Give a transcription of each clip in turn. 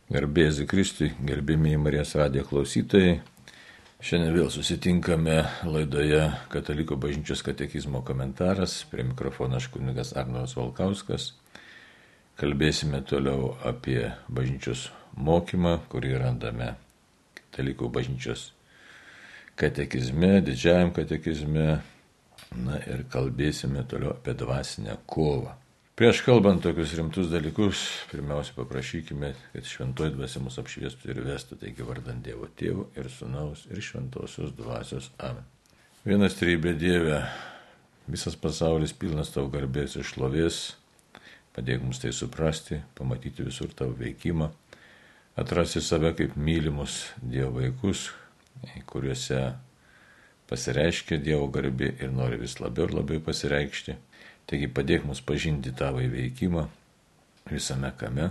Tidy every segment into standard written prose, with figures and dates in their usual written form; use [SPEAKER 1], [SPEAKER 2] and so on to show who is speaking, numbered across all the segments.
[SPEAKER 1] Garbė Jėzui Kristui, gerbėmiai Marijos radijo klausytojai. Šiandien vėl susitinkame laidoje Katalikų bažnyčios katekizmo komentaras. Prie mikrofono aš kunigas Arnoldas Valkauskas. Kalbėsime toliau apie bažnyčios mokymą, kurį randame Katalikų bažnyčios katekizme, didžiajam katekizme. Na ir kalbėsime toliau apie dvasinę kovą. Prieš kalbant tokius rimtus dalykus, pirmiausia paprašykime, kad šventoji dvasia mus apšviestų ir vestų, taigi vardant Dievo Tėvo ir Sūnaus ir Šventosios dvasios. Amen. Vienas trejybė Dieve, visas pasaulis pilnas tavo garbės ir šlovės, padėk mums tai suprasti, pamatyti visur tavo veikimą, atrasti save kaip mylimus Dievo vaikus, kuriuose pasireiškia Dievo garbė ir nori vis labiau ir labiau pasireikšti. Taigi padėk mus pažinti tavo veikimą visame kame,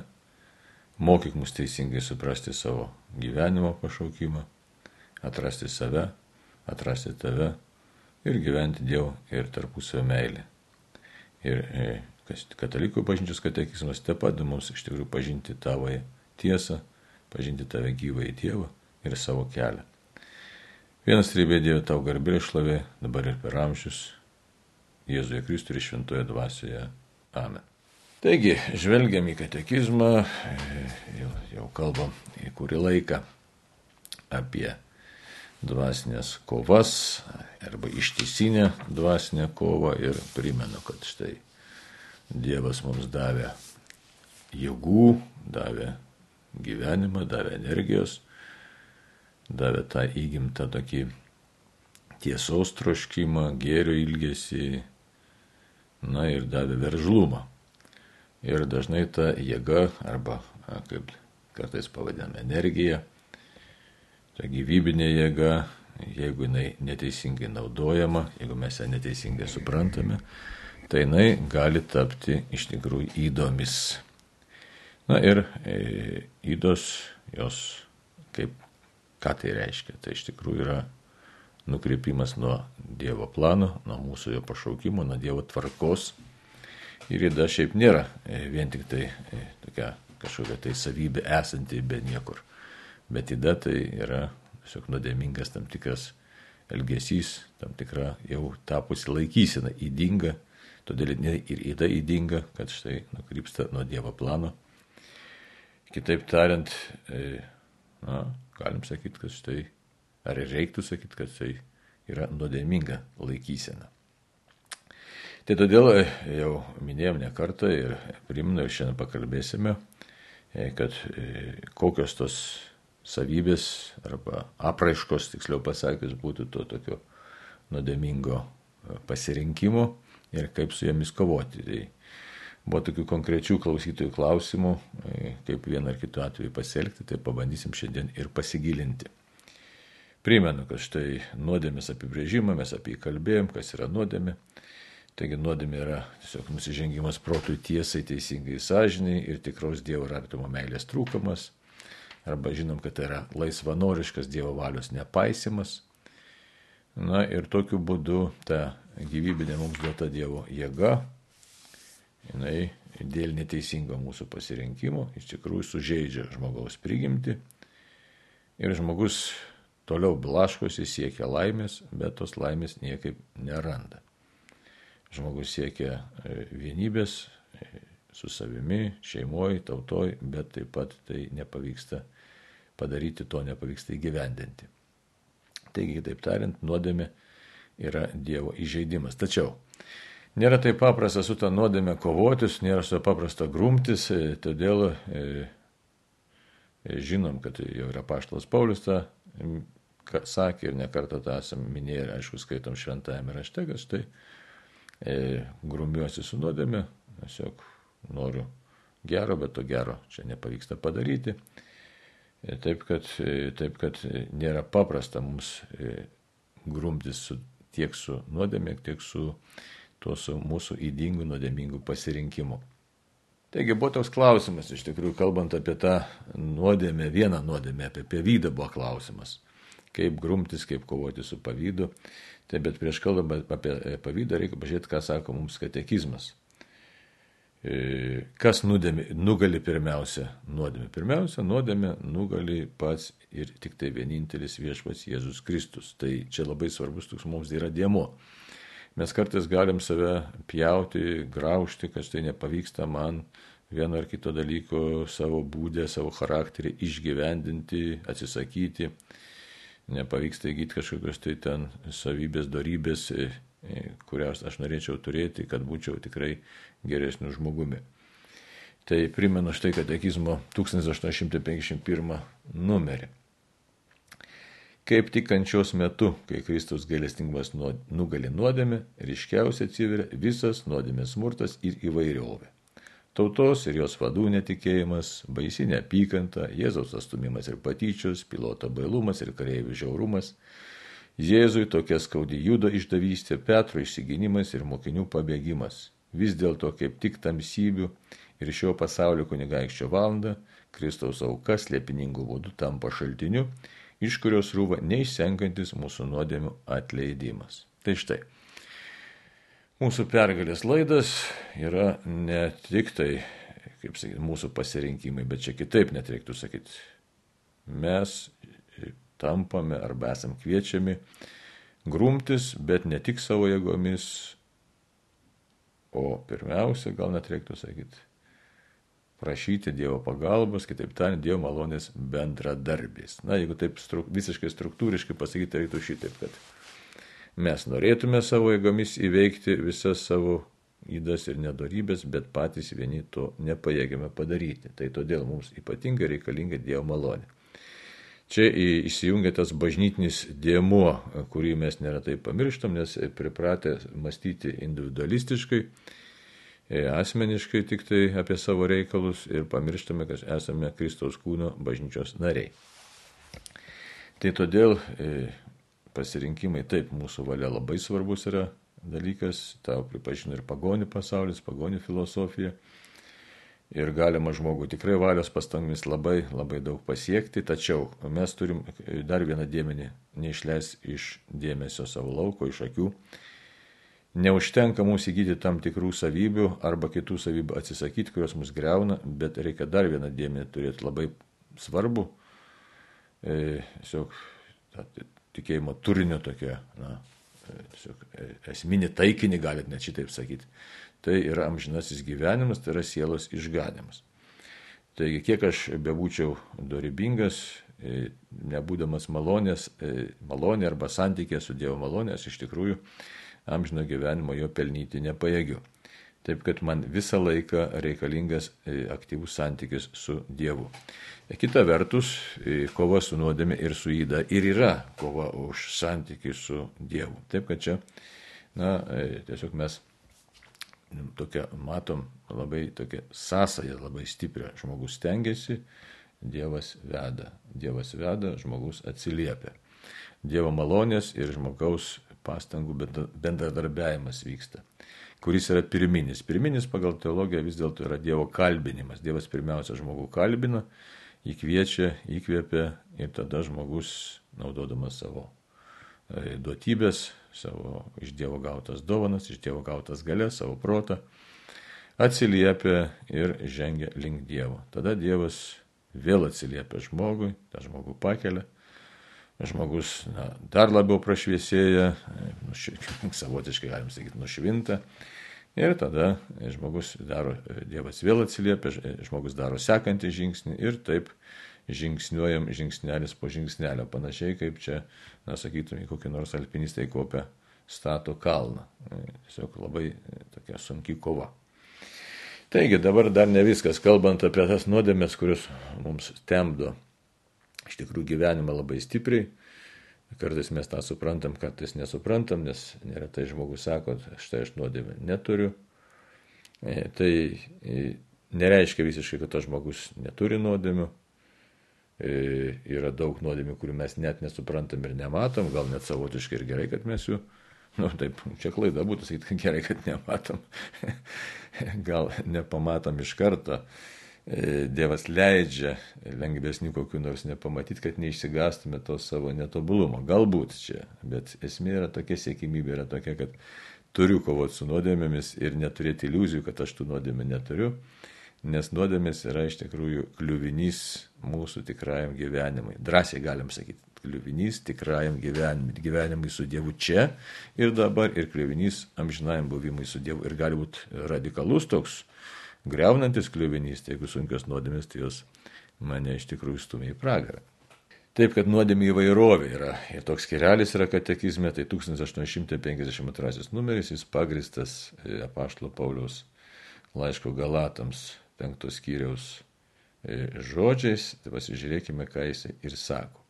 [SPEAKER 1] mokyk mus teisingai suprasti savo gyvenimo pašaukimą, atrasti save, atrasti tave ir gyventi Dievo ir tarpusavio meilę. Ir Katalikų bažnyčios katekizmas taip pat mums iš tikrųjų pažinti tavo tiesą, pažinti tave gyvąjį Dievą ir savo kelią. Vienas trejybė Dieve tau garbė ir šlovė, dabar ir per amžius. Jėzuje Kristuje ir šventoje dvasioje. Amen. Taigi, žvelgiam į katekizmą, jau kalbam į kurį laiką apie dvasinės kovas arba ištisinę dvasinę kovą ir primenu, kad štai Dievas mums davė jėgų, davė gyvenimą, davė energijos, davė tą įgimtą tokį tiesos troškimą, gėrio ilgesį, na ir davė veržlumą. Ir dažnai ta jėga, arba kaip kartais pavadiname energija, ta gyvybinė jėga, jeigu jinai neteisingai naudojama, jeigu mes ją neteisingai suprantame, tai jinai gali tapti iš tikrųjų ydomis. Na ir ydos, jos ką tai reiškia? Tai iš tikrųjų yra nukreipimas nuo Dievo plano, nuo mūsų jo pašaukimo, nuo Dievo tvarkos. Ir yda šiaip nėra vien tik tai tokia kažkokia tai savybė esanti be niekur. Bet yda tai yra tiesiog nuodėmingas tam tikras elgesys, tam tikra jau tapusi laikysena, ydinga. Todėl ir yda ydinga, kad štai nukrypsta nuo Dievo plano. Kitaip tariant, galim sakyti, kad štai ar reiktų sakyti, kad tai yra nuodėminga laikysena. Tai todėl jau minėjom ne kartą ir primenu ir šiandien pakalbėsime, kad kokios tos savybės arba apraiškos, tiksliau pasakius, būtų to tokio nuodėmingo pasirinkimo ir kaip su jomis kovoti. Tai buvo tokių konkrečių klausytojų klausimų, kaip vieną ar kitų atveju pasielgti, tai pabandysim šiandien ir pasigilinti. Primenu, kad štai nuodėmės apibrėžimą, mes apie jį kalbėjom, kas yra nuodėmė. Taigi nuodėmė yra tiesiog nusižengimas protui, tiesai, teisingai sąžiniai ir tikros Dievo ir artimo meilės trūkumas. Arba žinom, kad tai yra laisvanoriškas Dievo valios nepaisimas. Na ir tokiu būdu ta gyvybinė mums duota Dievo jėga, jinai dėl neteisingo mūsų pasirinkimo iš tikrųjų sužeidžia žmogaus prigimtį ir žmogus toliau blaškosi, siekia laimės, bet tos laimės niekaip neranda. Žmogus siekia vienybės su savimi, šeimoje, tautoje, bet taip pat tai nepavyksta padaryti, to nepavyksta įgyvendinti. Taigi, taip tariant, nuodėmė yra Dievo įžeidimas. Tačiau nėra taip paprasta su ta nuodėmė kovotis, nėra su paprasta grumtis, todėl žinom, kad jau yra apaštalas Paulius tą sakė ir nekartą tą esam minėję ir aišku skaitom šventajame rašte, kad štai grumiuosi su nuodėme, tiesiog noriu gero, bet to gero čia nepavyksta padaryti. Taip, kad nėra paprasta mums grumtis tiek su nuodėme, tiek su mūsų ydingų nuodėmingų pasirinkimu. Taigi buvo toks klausimas, iš tikrųjų, kalbant apie tą nuodėmę, vieną nuodėmę, apie pavydą buvo klausimas. Kaip grumtis, kaip kovoti su pavydu. Tai bet prieš kalbant apie pavydą reikia pažiūrėti, ką sako mums katekizmas. Kas nugali pirmiausia nuodėmė? Pirmiausia, nuodėmė nugali pats ir tik tai vienintelis viešpats Jėzus Kristus. Tai čia labai svarbus toks mums yra dėmuo. Mes kartais galim save pjauti, graužti, kad tai nepavyksta man vieno ar kito dalyko savo būdę, savo charakterį išgyvendinti, atsisakyti. Nepavyksta įgyti kažkokios tai ten savybės, dorybės, kurias aš norėčiau turėti, kad būčiau tikrai geresniu žmogumi. Tai primenu štai katekizmo 1851 numerį. Kaip tik kančios metu, kai Kristaus gailestingumas nugali nuodėmę, ryškiausiai atsiveria visas nuodėmės smurtas ir įvairiovė. Tautos ir jos vadų netikėjimas, baisi neapykanta, Jėzaus atstumimas ir patyčios, piloto bailumas ir kareivių žiaurumas, Jėzui tokia skaudi Judo išdavystė, Petro išsigynimas ir mokinių pabėgimas. Vis dėlto kaip tik tamsybių ir šio pasaulio kunigaikščio valanda, Kristaus auka slėpiningų būdų tampa šaltiniu, iš kurios rūva neišsenkantis mūsų nuodėmių atleidimas. Tai štai. Mūsų pergalės laidas yra ne tik tai, kaip sakyti, mūsų pasirinkimai, bet čia kitaip net reiktų sakyti. Mes tampame arba esam kviečiami grumtis, bet ne tik savo jėgomis, o pirmiausia, gal net reiktų sakyti, prašyti Dievo pagalbos, kitaip tariant, Dievo malonės bendradarbės. Na, jeigu taip visiškai struktūriškai pasakyti, reiktų šitaip, kad mes norėtume savo jėgomis įveikti visas savo ydas ir nedorybės, bet patys vieni to nepajėgiame padaryti. Tai todėl mums ypatingai reikalinga Dievo malonė. Čia įsijungia tas bažnytinis dėmuo, kurį mes neretai pamirštam, nes pripratę mąstyti individualistiškai, asmeniškai tik tai apie savo reikalus ir pamirštame, kad esame Kristaus kūno bažnyčios nariai. Tai todėl pasirinkimai, taip, mūsų valia labai svarbus yra dalykas, tau pripažino ir pagonių pasaulis, pagonių filosofija. Ir galima žmogui tikrai valios pastangomis labai, labai daug pasiekti, tačiau mes turim dar vieną dėmenį neišleisti iš dėmesio savo lauko, iš akių. Neužtenka mums įgyti tam tikrų savybių arba kitų savybių atsisakyti, kurios mus greuna, bet reikia dar vieną dėmenį turėti labai svarbu, tiesiog tikėjimo turinio tokia, tiesiog esminį taikinį, galit net šitaip sakyti. Tai yra amžinasis gyvenimas, tai yra sielos išganimas. Taigi, kiek aš bebūčiau dorybingas, nebūdamas malonė arba santykė su Dievo malonė, aš iš tikrųjų amžino gyvenimo jo pelnyti nepajėgiu. Taip, kad man visą laiką reikalingas aktyvus santykis su Dievu. Kita vertus, kova su nuodėme ir su yda ir yra kova už santykį su Dievu. Taip, kad čia, tiesiog mes matom labai tokia sąsaja, labai stiprią. Žmogus stengiasi, Dievas veda, žmogus atsiliepia. Dievo malonės ir žmogaus pastangų bendradarbiavimas vyksta, kuris yra pirminis. Pirminis pagal teologiją vis dėlto yra Dievo kalbinimas. Dievas pirmiausia žmogų kalbina, jį kviečia, įkvėpia ir tada žmogus, naudodamas savo duotybės, savo iš Dievo gautas dovanas, iš Dievo gautas galės, savo protą, atsiliepia ir žengia link Dievo. Tada Dievas vėl atsiliepia žmogui, tą žmogų pakelia, žmogus dar labiau prašviesėja, savotiškai galim sakyti, nušvinta, ir tada Dievas vėl atsiliepia, žmogus daro sekantį žingsnį ir taip žingsniuojam žingsnelis po žingsnelio, panašiai kaip čia, sakytume, kokie nors alpinistai kopia stato kalną. Tiesiog labai tokia sunki kova. Taigi dabar dar ne viskas, kalbant apie tas nuodėmės, kurios mums temdo iš tikrųjų gyvenimą labai stipriai. Kartais mes tą suprantam, kartais nesuprantam, nes neretai žmogus sako, štai aš nuodėmę neturiu. Tai nereiškia visiškai, kad tas žmogus neturi nuodėmių. Yra daug nuodėmių, kurių mes net nesuprantam ir nematom, gal net savotiškai ir gerai, kad mes jų, taip, čia klaida būtų sakyti, kad gerai, kad nematom, gal nepamatom iš karto. Dievas leidžia lengvesnių kokių nors nepamatyti, kad neišsigastume to savo netobulumo. Galbūt čia, bet esmė yra tokia, siekimybė yra tokia, kad turiu kovoti su nuodėmėmis ir neturėti iliuzijų, kad aš tų nuodėmė neturiu, nes nuodėmės yra iš tikrųjų kliuvinys mūsų tikrajam gyvenimui. Drąsiai galim sakyti, kliuvinys tikrajam gyvenimui su Dievu čia ir dabar, ir kliuvinys amžinajam buvimui su Dievu. Ir gali būti radikalus toks greunantis kliuvinys, tai jeigu sunkios nuodėmės, tai jos mane iš tikrųjų stumia į pragarą. Taip, kad nuodėmė įvairovė yra. Ir toks skyrelis yra katekizme, tai 1852 numeris, jis pagristas apaštalo Pauliaus laiško Galatams 5 skyriaus žodžiais. Tai pasižiūrėkime, ką jis ir sako.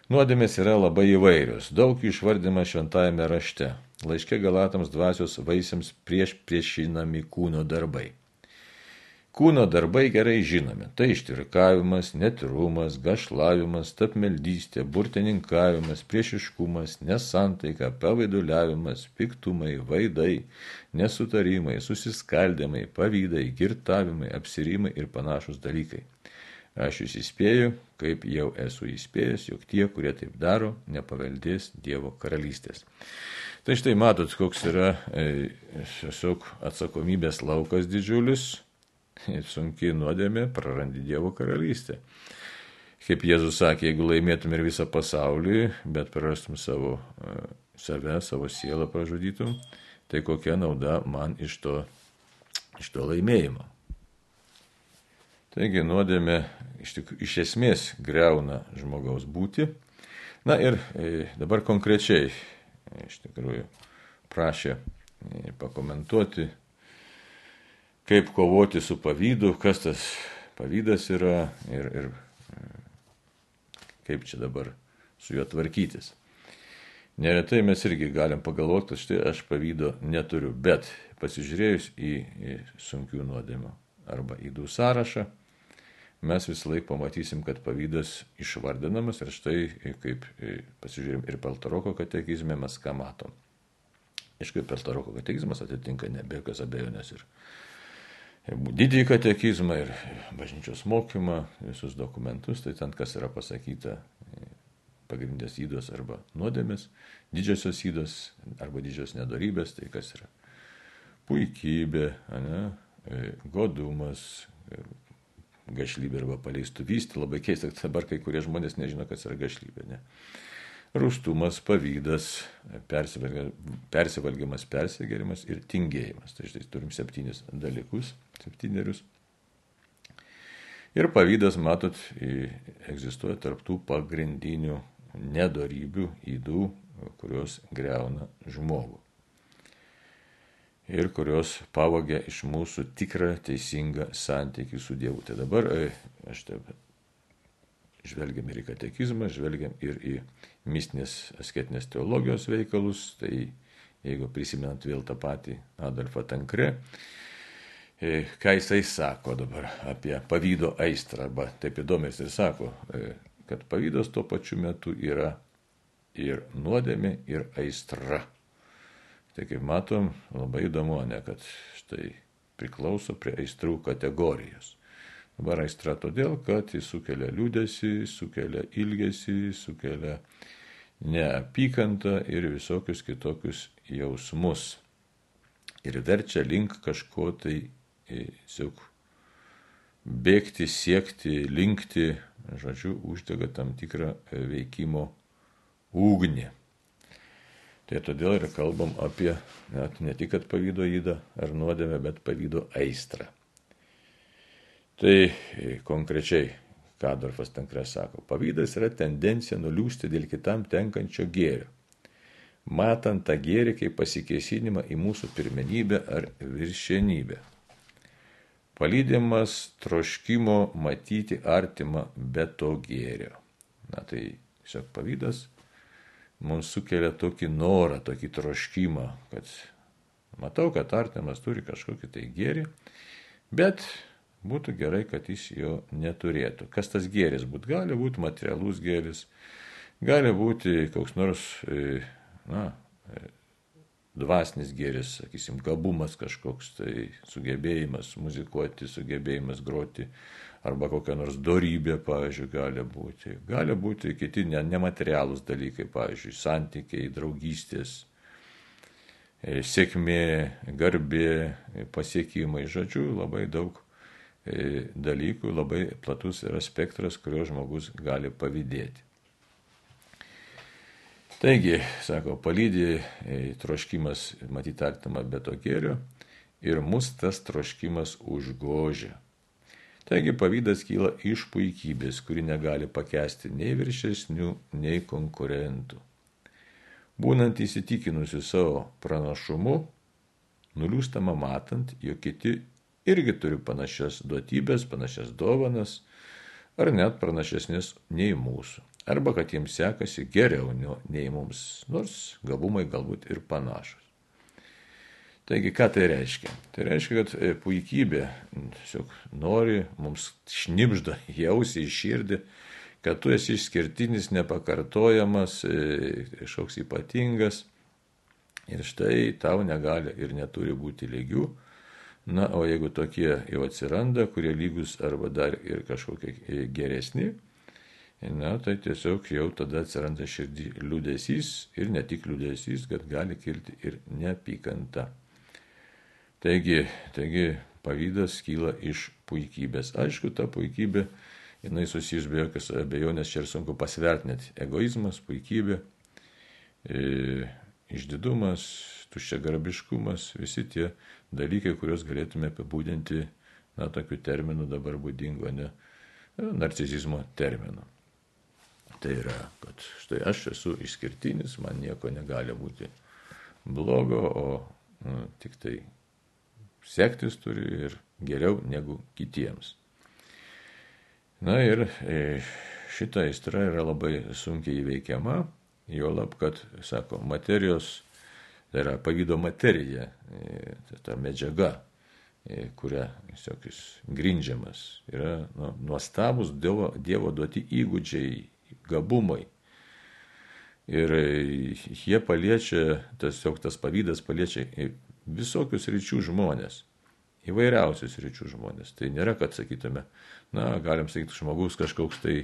[SPEAKER 1] Nuodėmės yra labai įvairios, daug jų išvardima šventajame rašte. Laiške Galatams dvasios vaisiams priešinami kūno darbai. Kūno darbai gerai žinomi. Tai ištirkavimas, netyrumas, gašlavimas, tapmeldystė, burtininkavimas, priešiškumas, nesantaika, pavaiduliavimas, piktumai, vaidai, nesutarimai, susiskaldimai, pavydai, girtavimai, apsirimai ir panašus dalykai. Aš jūs įspėju, kaip jau esu įspėjęs, jog tie, kurie taip daro, nepaveldės Dievo karalystės. Tai štai matot, koks yra tiesiog atsakomybės laukas didžiulis. Sunkiai nuodėmė, prarandi Dievo karalystę. Kaip Jėzus sakė, jeigu laimėtum ir visą pasaulį, bet prarastum save, savo sielą pražudytum, tai kokia nauda man iš to laimėjimo. Taigi nuodėmė iš esmės greuna žmogaus būtį. Na ir dabar konkrečiai iš tikrųjų prašė pakomentuoti, kaip kovoti su pavydu, kas tas pavydas yra ir kaip čia dabar su juo tvarkytis. Neretai mes irgi galim pagalvoti, kad štai aš pavydo neturiu, bet pasižiūrėjus į sunkių nuodėmių arba ydų sąrašą, mes visą laiką pamatysim, kad pavydas išvardinamas ir štai kaip pasižiūrėjom ir Peltoroko katekizme mes ką matom. Aišku, Peltoroko katekizmas atitinka ne be jokios abejonės ir didįjį katekizmą ir bažnyčios mokymą, visus dokumentus, tai ten kas yra pasakyta, pagrindės ydos arba nuodėmės, didžiosios ydos arba didžios nedorybės, tai kas yra puikybė, godumas, gašlybė arba paleistuvystė, labai keista, kad dabar kai kurie žmonės nežino, kas yra gašlybė, ne? Rūstumas, pavydas, persivalgymas, persigėrimas ir tingėjimas. Tai štai turim 7 dalykus, 7. Ir pavydas, matot, egzistuoja tarptų pagrindinių nedorybių, ydų, kurios greuna žmogų. Ir kurios pavogia iš mūsų tikrą teisingą santykį su Dievu. Tai dabar aš taip žvelgiam ir į katekizmą, žvelgiam ir į mistinės asketinės teologijos veikalus. Tai jeigu prisimenant vėl tą patį Adolfą Tankre, ką jisai sako dabar apie pavydo aistrą, arba taip įdomiai jisai sako, kad pavydas tuo pačiu metu yra ir nuodėmė, ir aistra. Tai kaip matom, labai įdomu, ne, kad štai priklauso prie aistrų kategorijos. Dabar aistra todėl, kad jis sukelia liūdesį, sukelia ilgesį, sukelia neapykantą ir visokius kitokius jausmus. Ir verčia link kažko tai tiesiog bėgti, siekti, linkti, žodžiu, uždega tam tikrą veikimo ugnį. Tai todėl ir kalbam apie ne tik pavydo ydą ar nuodėmę, bet pavydo aistrą. Tai konkrečiai, ką Adolfas Tankre sako, pavydas yra tendencija nuliūsti dėl kitam tenkančio gėrio, matant tą gėrį kaip pasikėsinimą į mūsų pirmenybę ar viršenybę. Palydimas troškimo matyti artimą be to gėrio. Na tai tiesiog pavydas mums sukelia tokį norą, tokį troškimą, kad matau, kad artimas turi kažkokį tai gėrį, bet būtų gerai, kad jis jo neturėtų. Kas tas gėris būtų? Gali būti materialus gėris, gali būti koks nors dvasinis gėris, sakysim, gabumas kažkoks, tai sugebėjimas muzikuoti, sugebėjimas groti, arba kokia nors dorybė, pavyzdžiui, gali būti. Gali būti kiti nematerialūs dalykai, pavyzdžiui, santykiai, draugystės, sėkmė, garbė, pasiekimai, žodžiu, labai daug dalykų, labai platus yra spektras, kurio žmogus gali pavydėti. Taigi, sako, palydi troškimas matyti artimą be to gėrio ir mus tas troškimas užgožia. Taigi, pavydas kyla iš puikybės, kuri negali pakęsti nei viršesnių, nei konkurentų. Būnant įsitikinusi savo pranašumu, nuliūstama matant, jog kiti irgi turi panašias duotybės, panašias dovanas, ar net pranašesnės nei mūsų. Arba kad jiems sekasi geriau nei mums, nors gabumai galbūt ir panašus. Taigi, ką tai reiškia? Tai reiškia, kad puikybė tiesiog nori mums šnibžda jausi į širdį, kad tu esi išskirtinis, nepakartojamas, kažkoks ypatingas ir štai tau negali ir neturi būti lygių. Na, o jeigu tokie jau atsiranda, kurie lygus arba dar ir kažkokie geresni, na, tai tiesiog jau tada atsiranda širdį liūdesys ir ne tik liūdesys, kad gali kilti ir neapykanta. Taigi pavydas kyla iš puikybės. Aišku, ta puikybė, jinai susijus be jokios abejonės, čia ir sunku pasverti net egoizmas, puikybė, išdidumas, tuščiagarbiškumas, visi tie dalykai, kuriuos galėtume apibūdinti, na, tokiu terminu dabar būdingo, ne, narcisizmo terminu. Tai yra, kad štai aš esu išskirtinis, man nieko negali būti blogo, o tik tai sektis turi ir geriau negu kitiems. Na ir šita aistra yra labai sunkiai įveikiama, juolab, kad, sako, materijos, tai yra pavydo materija, ta medžiaga, kuria jis grindžiamas, yra nuostabus Dievo duoti įgūdžiai, gabumai. Ir jie paliečia, tas pavydas paliečia visokius ryčių žmonės, įvairiausius ryčių žmonės. Tai nėra, kad sakytume, na, galim sakyti, žmogus kažkoks tai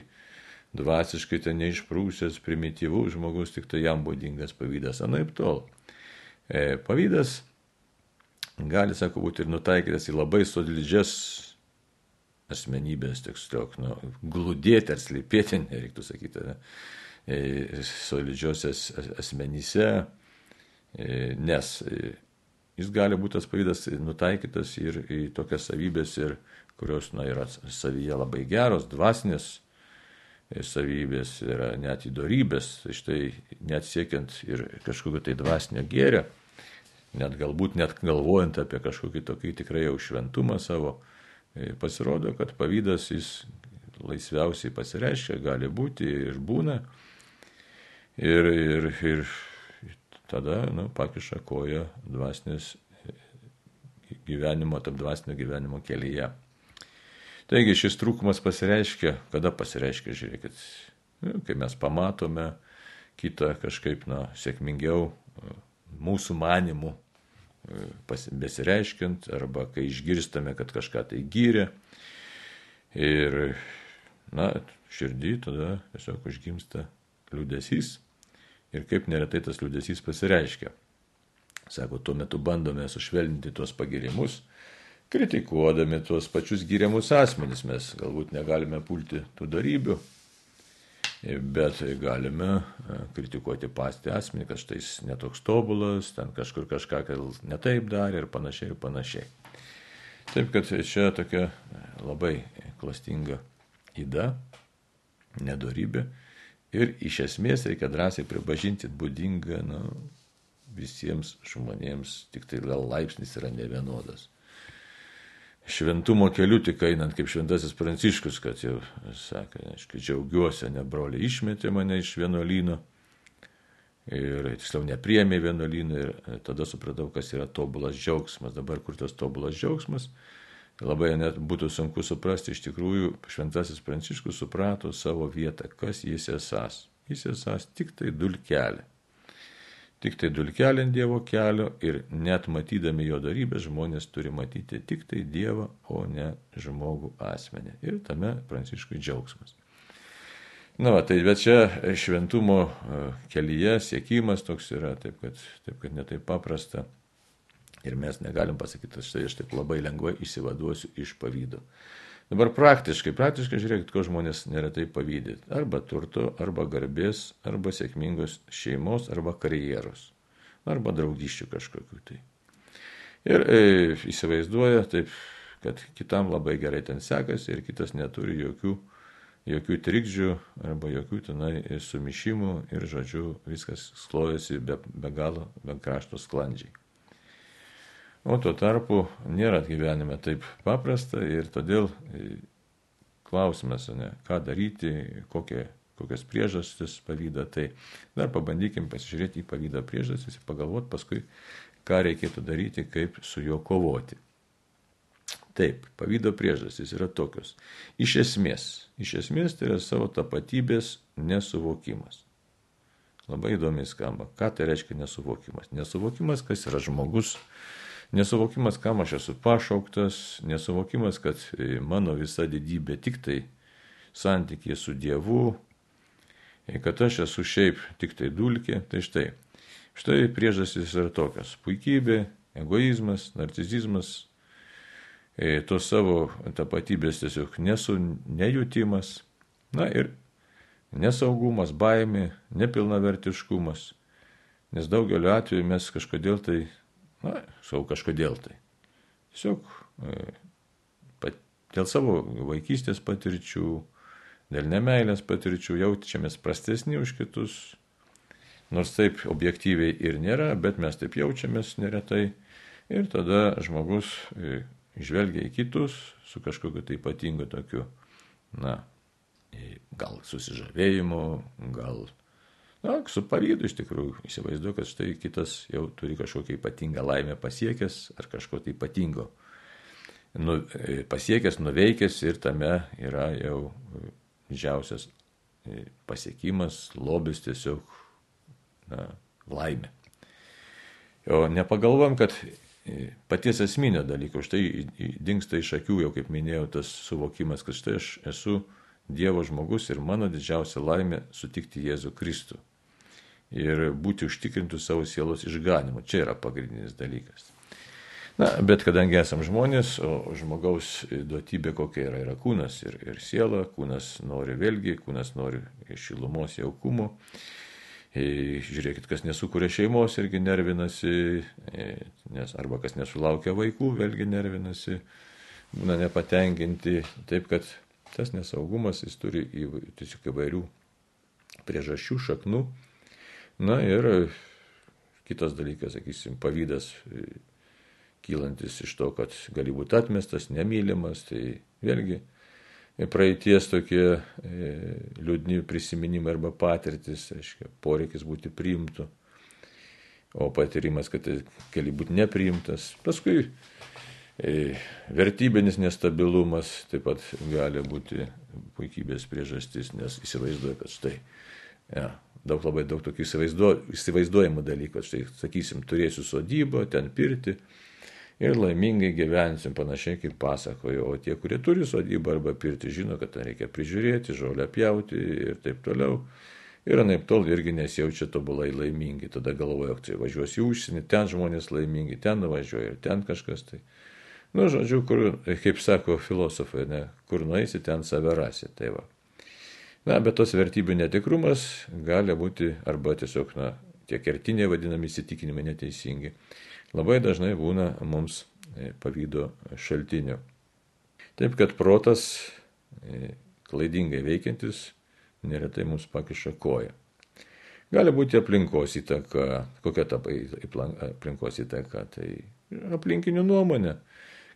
[SPEAKER 1] dvasiškai ten neišprūsęs, primityvus žmogus, tik tai jam būdingas pavydas, anaip tol. Pavydas gali, sako, būti ir nutaikytas į labai solidžias asmenybės, tiksliau, glūdėti ar slypėti, nereiktų sakyti, solidžiosios asmenyse, nes jis gali būti tas pavydas nutaikytas ir į tokias savybės, kurios yra savyje labai geros, dvasinės savybės, yra net įdorybės, štai net siekiant ir kažkokio tai dvasinio gėrio, net galbūt net galvojant apie kažkokį tokį tikrai jau šventumą savo, pasirodo, kad pavydas jis laisviausiai pasireiškia, gali būti ir būna, ir tada pakiša koją dvasinės gyvenimo, tarp dvasinio gyvenimo kelyje. Taigi šis trūkumas pasireiškia, kada pasireiškia, žiūrėkit, kai mes pamatome kitą kažkaip sėkmingiau mūsų manimų besireiškiant, arba kai išgirstame, kad kažką tai gyrė ir, širdį tada tiesiog užgimsta liūdesys ir kaip neretai tas liūdesys pasireiškia. Sako, tuo metu bandome sušvelninti tuos pagirimus, kritikuodami tuos pačius gyriamus asmenys. Mes galbūt negalime pulti tų darybių, bet galime kritikuoti patį asmenį, kad štai jis netoks tobulas, ten kažkur kažką netaip darė ir panašiai. Taip, kad čia tokia labai klastinga yda, nedorybė ir iš esmės reikia drąsiai pripažinti būdinga visiems žmonėms, tik tai laipsnis yra nevienodas. Šventumo keliu tik einant kaip šventasis Pranciškus, kad jau sakė, aišku, džiaugiuosi, ne broliai išmetė mane iš vienuolyno ir tiksliau nepriėmė vienuolyną ir tada supratau, kas yra tobulas džiaugsmas. Dabar kur tas tobulas džiaugsmas, labai net būtų sunku suprasti, iš tikrųjų šventasis Pranciškus suprato savo vietą, kas jis esas. Jis esas tik tai dulkelė. Tik tai dulkelė ant Dievo kelio ir net matydami jo darybės žmonės turi matyti tik tai Dievą, o ne žmogų asmenį. Ir tame Pranciškui džiaugsmas. Tai bet čia šventumo kelyje siekimas toks yra, taip kad netaip paprasta. Ir mes negalim pasakyti, štai aš taip labai lengvai išsivaduosiu iš pavydo. Dabar praktiškai žiūrėkit, ko žmonės neretai pavydė. Arba turto, arba garbės, arba sėkmingos šeimos, arba karjeros, arba draugyščių kažkokiu tai. Ir įsivaizduoja taip, kad kitam labai gerai ten sekasi ir kitas neturi jokių trikdžių arba jokių tenai sumišimų ir, žodžiu, viskas sklojasi be galo, be krašto sklandžiai. O tuo tarpu nėra gyvenime taip paprasta ir todėl klausimas, ką daryti, kokias priežastis pavydą. Tai dar pabandykim pasižiūrėti į pavydą priežastis ir pagalvoti paskui, ką reikėtų daryti, kaip su juo kovoti. Taip, pavydo priežastys yra tokios. Iš esmės tai yra savo tapatybės nesuvokimas. Labai įdomiai skamba. Ką tai reiškia nesuvokimas? Nesuvokimas, kas yra žmogus. Nesuvokimas, kam aš esu pašauktas, nesuvokimas, kad mano visa didybė tik tai santykė su Dievu, kad aš esu šiaip tik tai dulkė. Tai štai priežastys yra tokios. Puikybė, egoizmas, narcisizmas, tos savo tapatybės tiesiog nejutimas, ir nesaugumas, baimė, nepilnavertiškumas, nes daugeliu atveju mes kažkodėl tai, tiesiog dėl savo vaikystės patirčių, dėl nemeilės patirčių jaučiamės prastesni už kitus, nors taip objektyviai ir nėra, bet mes taip jaučiamės neretai ir tada žmogus žvelgia į kitus su kažkokiu tai ypatingu tokiu, gal susižavėjimu, gal su pavydu iš tikrųjų įsivaizduoju, kad štai kitas jau turi kažkokią ypatingą laimę pasiekęs ar kažko tai ypatingo pasiekęs, nuveikęs ir tame yra jau didžiausias pasiekimas, lobis tiesiog laimė. O nepagalvom, kad paties esminio dalyko, štai dingsta iš akių, jau kaip minėjau, tas suvokimas, kad štai aš esu Dievo žmogus ir mano didžiausia laimė sutikti Jėzų Kristų ir būti užtikrintų savo sielos išganymu. Čia yra pagrindinis dalykas. Bet kadangi esam žmonės, o žmogaus duotybė kokia yra kūnas ir siela, kūnas nori šilumos, jaukumo. Žiūrėkit, kas nesukuria šeimos irgi nervinasi, arba kas nesulaukia vaikų, vėlgi nervinasi, būna nepatenkinti. Taip, kad tas nesaugumas, jis turi tiesiog įvairių priežasčių, šaknų. Ir kitas dalykas, sakysim, pavydas kylantis iš to, kad gali būti atmestas, nemylimas, tai vėlgi praeities tokie liūdni prisiminimai arba patirtis, poreikis būti priimtu, o patyrimas, kad gali būti nepriimtas. Paskui vertybinis nestabilumas taip pat gali būti puikybės priežastis, nes įsivaizduoju, kad štai labai daug tokių įsivaizduojamų dalykų. Štai, sakysim, turėsiu sodybą, ten pirtį ir laimingai gyvensim, panašiai kaip pasakoju. O tie, kurie turi sodybą arba pirtį, žino, kad ten reikia prižiūrėti, žolę pjauti ir taip toliau. Ir anaiptol irgi nesijaučia tobulai laimingi. Tada galvoja, kad važiuosi į užsienį, ten žmonės laimingi, ten nuvažiuoja ir ten kažkas tai. Žodžiu, kaip sako filosofai, kur nueisi, ten save rasi. Tai va. Bet tos vertybių netikrumas gali būti arba tiesiog, tie kertiniai vadinami įsitikinimai neteisingi. Labai dažnai būna mums pavydo šaltinių. Taip, kad protas klaidingai veikiantis neretai mums pakiša koją. Gali būti aplinkos įtaka. Kokia ta aplinkos įtaka? Tai aplinkinių nuomonė,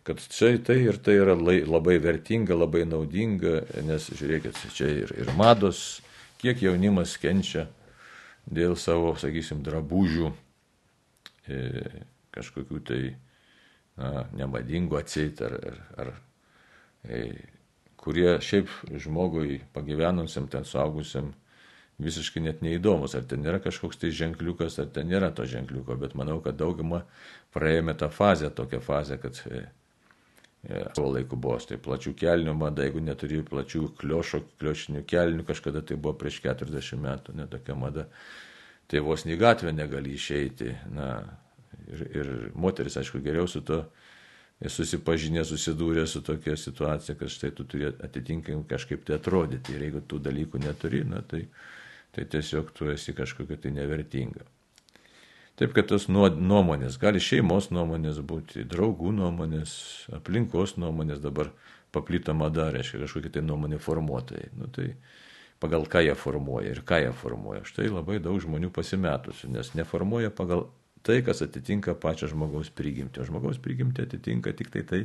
[SPEAKER 1] kad čia tai ir tai yra labai vertinga, labai naudinga, nes žiūrėkit, čia ir mados, kiek jaunimas kenčia dėl savo, sakysim, drabužių, kažkokių tai nemadingų atseit, ar kurie šiaip žmogui pagyvenusiam, ten suaugusiam, visiškai net neįdomus, ar ten yra kažkoks tai ženkliukas, ar ten nėra to ženkliuko, bet manau, kad dauguma praėjome tą fazę, tokią fazę, kad Savo laiku buvo tai plačių kelnių mada, jeigu neturi plačių kliošinių kelnių, kažkada tai buvo prieš 40 metų, netokia mada, tai vos į gatvę negali išeiti. Ir moteris, aišku, geriau su to susipažinę, susidūrė su tokia situacija, kad štai tu turi atitinkamai kažkaip tai atrodyti. Ir jeigu tų dalykų neturi, tai tiesiog tu esi kažkokia tai nevertinga. Taip, kad tos nuomonės, gali šeimos nuomonės būti, draugų nuomonės, aplinkos nuomonės, dabar paplito mada, reiškia kažkokie tai nuomonė formuotojai. Tai pagal ką jie formuoja ir ką jie formuoja. Štai labai daug žmonių pasimetusių, nes neformuoja pagal tai, kas atitinka pačią žmogaus prigimtį. O žmogaus prigimtį atitinka tik tai,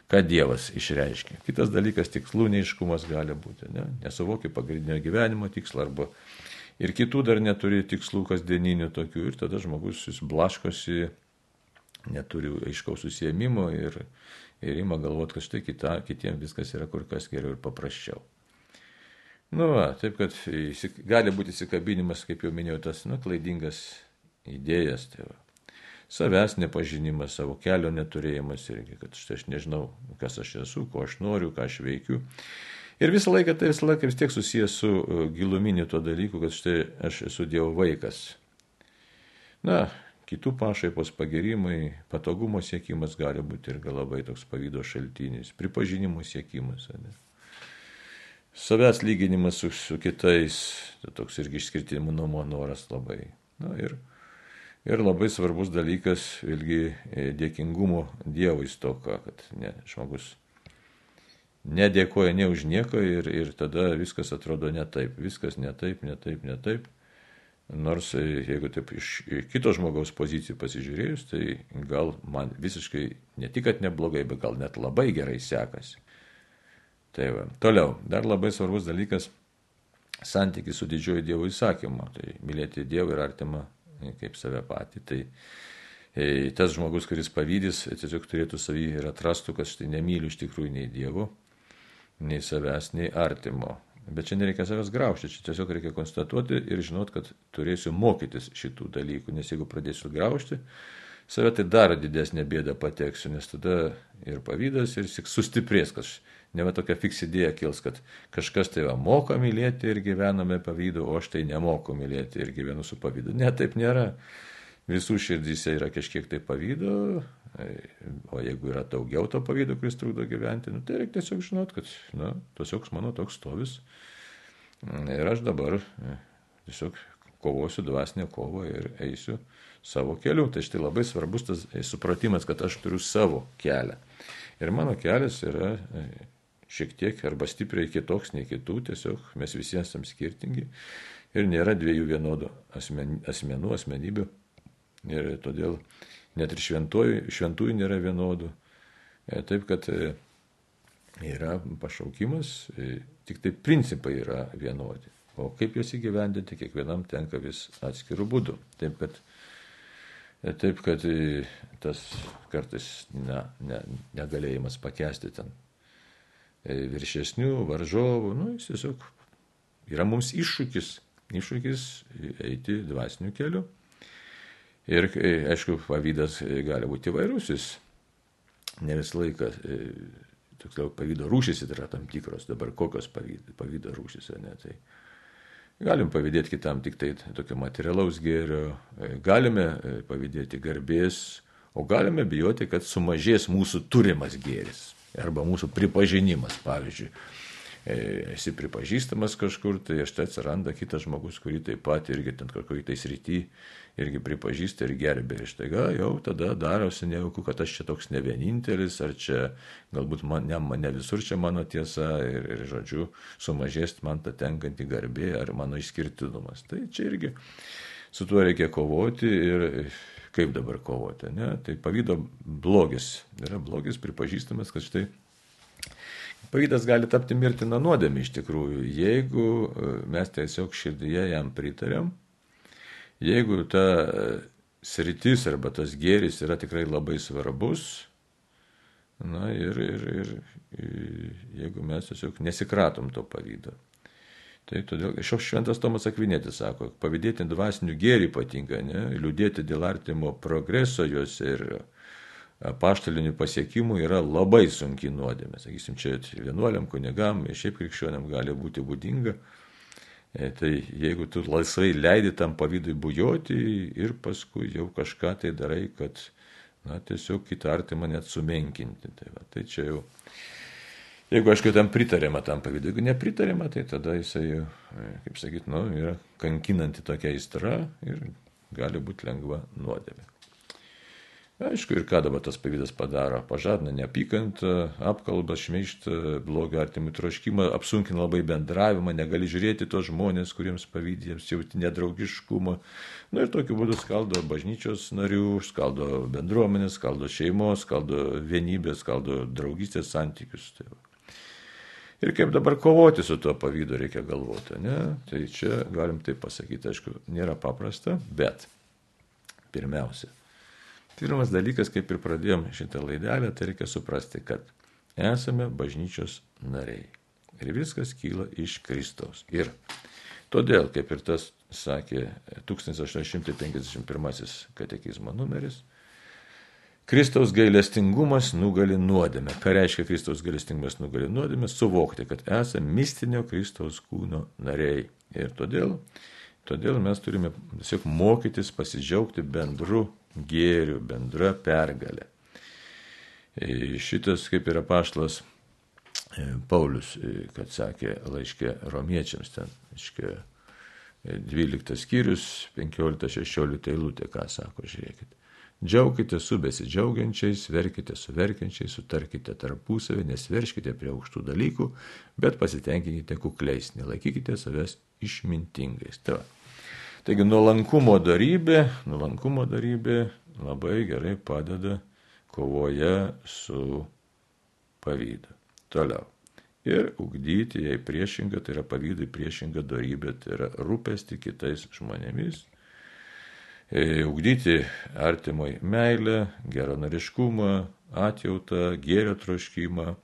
[SPEAKER 1] ką Dievas išreiškia. Kitas dalykas, tikslų neiškumas gali būti. Nesuvokia pagrindinio gyvenimo tikslą arba ir kitų dar neturi tikslų kasdieninių tokių. Ir tada žmogus blaškosi, neturi aiškaus susiėmimo ir ima galvoti, kad štai kitiems viskas yra kur kas geriau ir paprasčiau. Taip, kad gali būti įsikabinimas, kaip jau minėjau, tas klaidingas idėjas, tai savęs nepažinimas, savo kelio neturėjimas irgi, kad štai aš nežinau, kas aš esu, ko aš noriu, ką aš veikiu. Ir visą laiką vis tiek susijęs su giluminiu to dalyku, kad štai aš esu Dievo vaikas. Kitų pašaipos pagirimai, patogumo siekimas gali būti ir labai toks pavydo šaltinis, pripažinimo siekimas. Savęs lyginimas su kitais, toks irgi išskirtinumo noras labai. Ir labai svarbus dalykas, vėlgi, dėkingumo Dievui stoka, kad žmogus nedėkoja ne už nieką ir tada viskas atrodo ne taip. Viskas ne taip. Nors jeigu taip iš kito žmogaus pozicijų pasižiūrėjus, tai gal man visiškai ne tik, kad neblogai, bet gal net labai gerai sekasi. Tai toliau, dar labai svarbus dalykas - santykis su didžiuoju Dievo įsakymu. Tai mylėti Dievą ir artimą kaip save patį. Tai tas žmogus, kuris pavydys, tiesiog turėtų savį ir atrastų, kad štai nemyliu iš tikrųjų nei Dievo, nei savęs, nei artimo. Bet čia nereikia savęs graužti, čia tiesiog reikia konstatuoti ir žinot, kad turėsiu mokytis šitų dalykų, nes jeigu pradėsiu graužti save, tai dar didesnė bėda pateksiu, nes tada ir pavydas, ir sustiprės, kad ne va tokia fiks idėja kils, kad kažkas tai moka mylėti ir gyvename pavydu, o aš tai nemoku mylėti ir gyvenu su pavydu. Ne, taip nėra. Visų širdyse yra kažkiek tai pavydo, o jeigu yra daugiau to pavydo, kuris trukdo gyventi, tai reikia tiesiog žinot, kad tiesiog mano toks stovis. Ir aš dabar tiesiog kovosiu dvasinę kovą ir eisiu savo keliu. Tai štai labai svarbus tas supratimas, kad aš turiu savo kelią. Ir mano kelias yra šiek tiek arba stipriai kitoks nei kitų, tiesiog mes visi esame skirtingi ir nėra dviejų vienodų asmenybių. Ir todėl net ir šventųjų nėra vienodų. Taip, kad yra pašaukimas, tik tai principai yra vienodi. O kaip juos įgyvendinti, kiekvienam tenka vis atskirų būdų. Taip, kad tas kartais negalėjimas pakęsti ten viršesnių, varžovų, jis tiesiog yra mums iššūkis eiti dvasiniu keliu. Ir, aišku, pavydas gali būti įvairus, jis ne visą laiką, toksliau, pavydo rūšys yra tam tikros, dabar kokios pavydo rūšys, tai galim pavydėti kitam tik tai tokio materialaus gėrio, galime pavydėti garbės, o galime bijoti, kad sumažės mūsų turimas gėris arba mūsų pripažinimas, pavyzdžiui. Esi pripažįstamas kažkur, tai štai atsiranda kitas žmogus, kurį taip pat irgi ten kokį tai srity irgi pripažįsta ir gerbė. Ir štai jau tada darosi nejauku, kad aš čia toks ne vienintelis, ar čia galbūt ne visur čia mano tiesa ir žodžiu, sumažės man tą tenkantį garbė ar mano išskirtinumas. Tai čia irgi su tuo reikia kovoti ir kaip dabar kovoti. Tai pavydo blogis. Yra blogis pripažįstamas, kad štai pavydas gali tapti mirtina nuodėmė iš tikrųjų, jeigu mes tiesiog širdyje jam pritarėm, jeigu ta sritis arba tas gėris yra tikrai labai svarbus, ir jeigu mes tiesiog nesikratom to pavydo. Tai todėl šventas Tomas Akvinėtis sako, pavydėti dvasinių gėrį patinka, liūdėti dėl artimo progreso juose ir apaštalinių pasiekimų yra labai sunki nuodėmė. Sakysim, čia vienuoliam, kunigam, šiaip krikščioniam gali būti būdinga. Tai jeigu tu laisvai leidi tam pavydui bujoti ir paskui jau kažką tai darai, kad tiesiog kitą artimą net sumenkinti. Tai čia jau, jeigu aišku tam pritarėma tam pavydui, jeigu nepritarėma, tai tada jisai, kaip sakyt, yra kankinanti tokia aistra ir gali būti lengva nuodėmė. Aišku, ir ką dabar tas pavydas padaro? Pažadina neapykantą, apkalbą, šmeižtą, blogą artimų troškimą, apsunkina labai bendravimą, negali žiūrėti tos žmonės, kuriems pavydė, jiems jauti nedraugiškumą. Ir tokiu būdu skaldo bažnyčios narių, skaldo bendruomenės, skaldo šeimos, skaldo vienybės, skaldo draugystės santykius. Ir kaip dabar kovoti su tuo pavydu reikia galvoti, ne? Tai čia galim taip pasakyti, aišku, nėra paprasta, bet pirmiausia. Pirmas dalykas, kaip ir pradėjom šitą laidelę, tai reikia suprasti, kad esame bažnyčios nariai. Ir viskas kyla iš Kristaus. Ir todėl, kaip ir tas sakė 1851 katekizmo numeris, Kristaus gailestingumas nugali nuodėmę. Ką reiškia Kristaus gailestingumas nugali nuodėmę? Suvokti, kad esame mistinio Kristaus kūno nariai. Ir todėl mes turime tiesiog mokytis pasidžiaugti bendru gėriu, bendra pergalė. Šitas, kaip ir apaštalas Paulius, kad sakė laiške romiečiams, ten, 12 skyrius, 15-16 eilutė, ką sako, žiūrėkit. Džiaukite su besidžiaugiančiais, verkite su verkiančiais, sutarkite tarpusavį, nesverškite prie aukštų dalykų, bet pasitenkinkite kukliais, nelaikykite savęs išmintingais. Taigi nuolankumo darybė labai gerai padeda kovoje su pavydu. Toliau. Ir ugdyti jai priešingą, tai yra pavydui priešingą darybę, tai yra rūpesti kitais žmonėmis. Ugdyti artimoj meilę, geranoriškumą, atjautą, gėrio troškimą.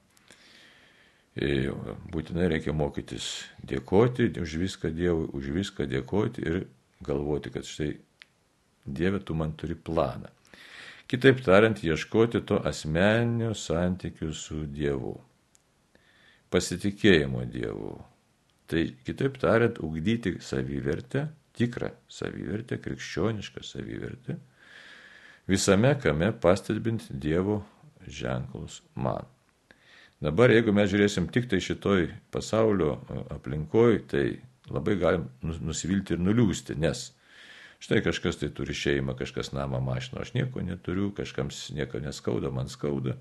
[SPEAKER 1] Būtinai reikia mokytis dėkoti už viską Dievui, už viską dėkoti ir galvoti, kad štai Dieve, tu man turi planą. Kitaip tariant, ieškoti to asmeninio santykių su Dievu. Pasitikėjimo Dievu. Tai kitaip tariant, ugdyti savivertę, tikrą savivertę, krikščionišką savivertę, visame kame pastebint Dievo ženklus man. Dabar, jeigu mes žiūrėsim tik tai šitoj pasaulio aplinkoj, tai labai galim nusivilti ir nuliūsti, nes štai kažkas tai turi šeimą, kažkas namą, mašiną, aš nieko neturiu, kažkams nieko neskauda, man skauda.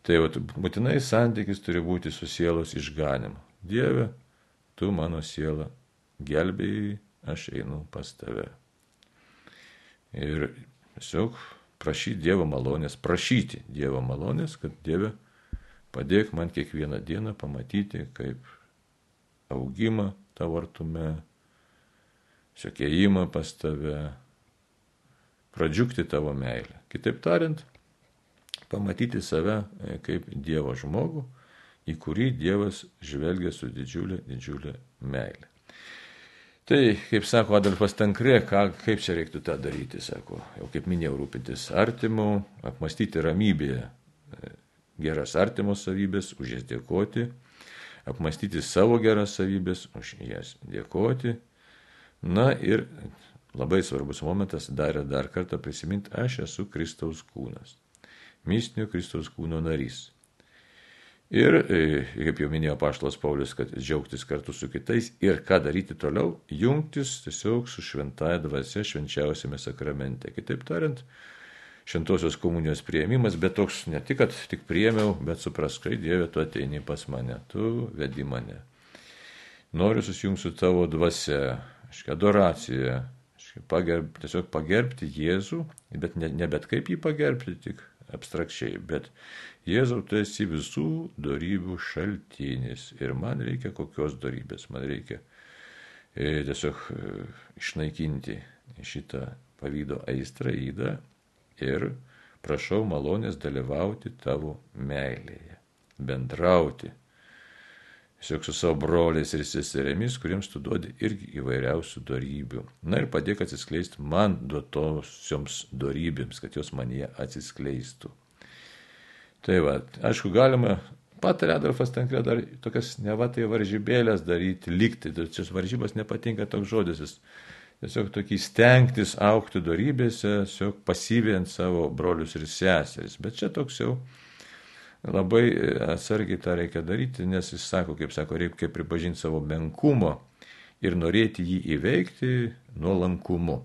[SPEAKER 1] Tai būtinai santykis turi būti su sielos išganimu. Dieve, tu mano sielą gelbėjai, aš einu pas tave. Ir tiesiog prašyti Dievo malonės, kad Dieve, padėk man kiekvieną dieną pamatyti, kaip augimą tavo artume, siokėjimą pas tave, pradžiugti tavo meilę. Kitaip tariant, pamatyti save kaip Dievo žmogų, į kurį Dievas žvelgia su didžiulė meilė. Tai, kaip sako Adolfas Tankre, kaip čia reiktų tą daryti, sako, jau kaip minėjau, rūpintis artimu, apmastyti ramybėje geras artimo savybės, už jas dėkoti, apmastyti savo geras savybės, už jas dėkoti. Na ir labai svarbus momentas, dar kartą prisiminti, aš esu Kristaus kūnas, mistinio Kristaus kūno narys. Ir, kaip jau minėjo apaštalas Paulius, kad džiaugtis kartu su kitais ir ką daryti toliau, jungtis tiesiog su šventąja dvasia švenčiausiame sakramente. Kitaip tariant, šventosios komunijos priėmimas, bet toks ne tik, kad tik priėmiau, bet suprask, kai Dieve, tu ateini pas mane, tu vedi mane. Noriu susijungti su tavo dvasia, adoracija, tiesiog pagerbti Jėzų, bet ne bet kaip jį pagerbti, tik abstrakčiai, bet Jėzau, tu esi visų dorybių šaltinis ir man reikia kokios dorybės, man reikia tiesiog išnaikinti šitą pavydo aistrą, ydą ir prašau malonės dalyvauti tavo meilėje, bendrauti tiesiog su savo broliais ir seserėmis, kuriems tu duodi irgi įvairiausių dorybių. Na ir padėk atsiskleisti man duotosioms dorybėms, kad jos manyje atsiskleistų. Tai va, aišku, galima, patarė Adolfas Tankre dar tokias nevatai varžybėlės daryti, likti. Čia varžybos nepatinka toks žodis, jis tiesiog tokį stengtis aukti dorybėse, tiesiog pasyviant savo brolius ir seseris. Bet čia toks jau labai atsargiai tą reikia daryti, nes jis sako, reikia pripažinti savo menkumo ir norėti jį įveikti nuolankumu.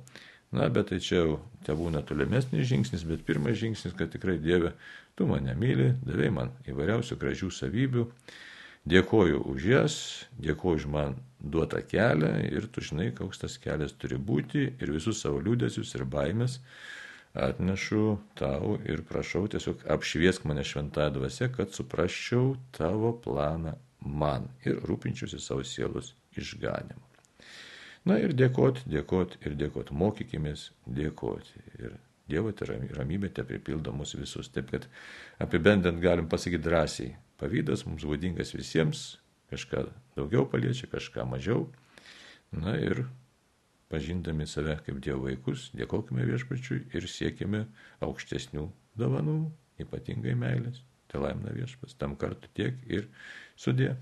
[SPEAKER 1] Na, bet tai čia jau tebūna tolimesnis žingsnis, bet pirmas žingsnis, kad tikrai Dieve, tu mane myli, davei man įvairiausių gražių savybių, dėkoju už jas, dėkoju už man duotą kelią ir tu žinai, koks tas kelias turi būti ir visus savo liūdesius ir baimės atnešu tau ir prašau tiesiog apšviesk mane šventąja dvasia, kad suprasčiau tavo planą man ir rūpinčiausi savo sielos išganimu. Na ir dėkoti, mokykimės dėkoti. Ir Dievo ramybė te pripildo mus visus. Taip, kad apibendrint galim pasakyti drąsiai. Pavydas mums būdingas visiems, kažką daugiau paliečia, kažką mažiau. Na ir pažindami save kaip Dievo vaikus, dėkokime Viešpačiui ir siekime aukštesnių dovanų, ypatingai meilės. Tai laimina Viešpats, tam kartu tiek ir sudie.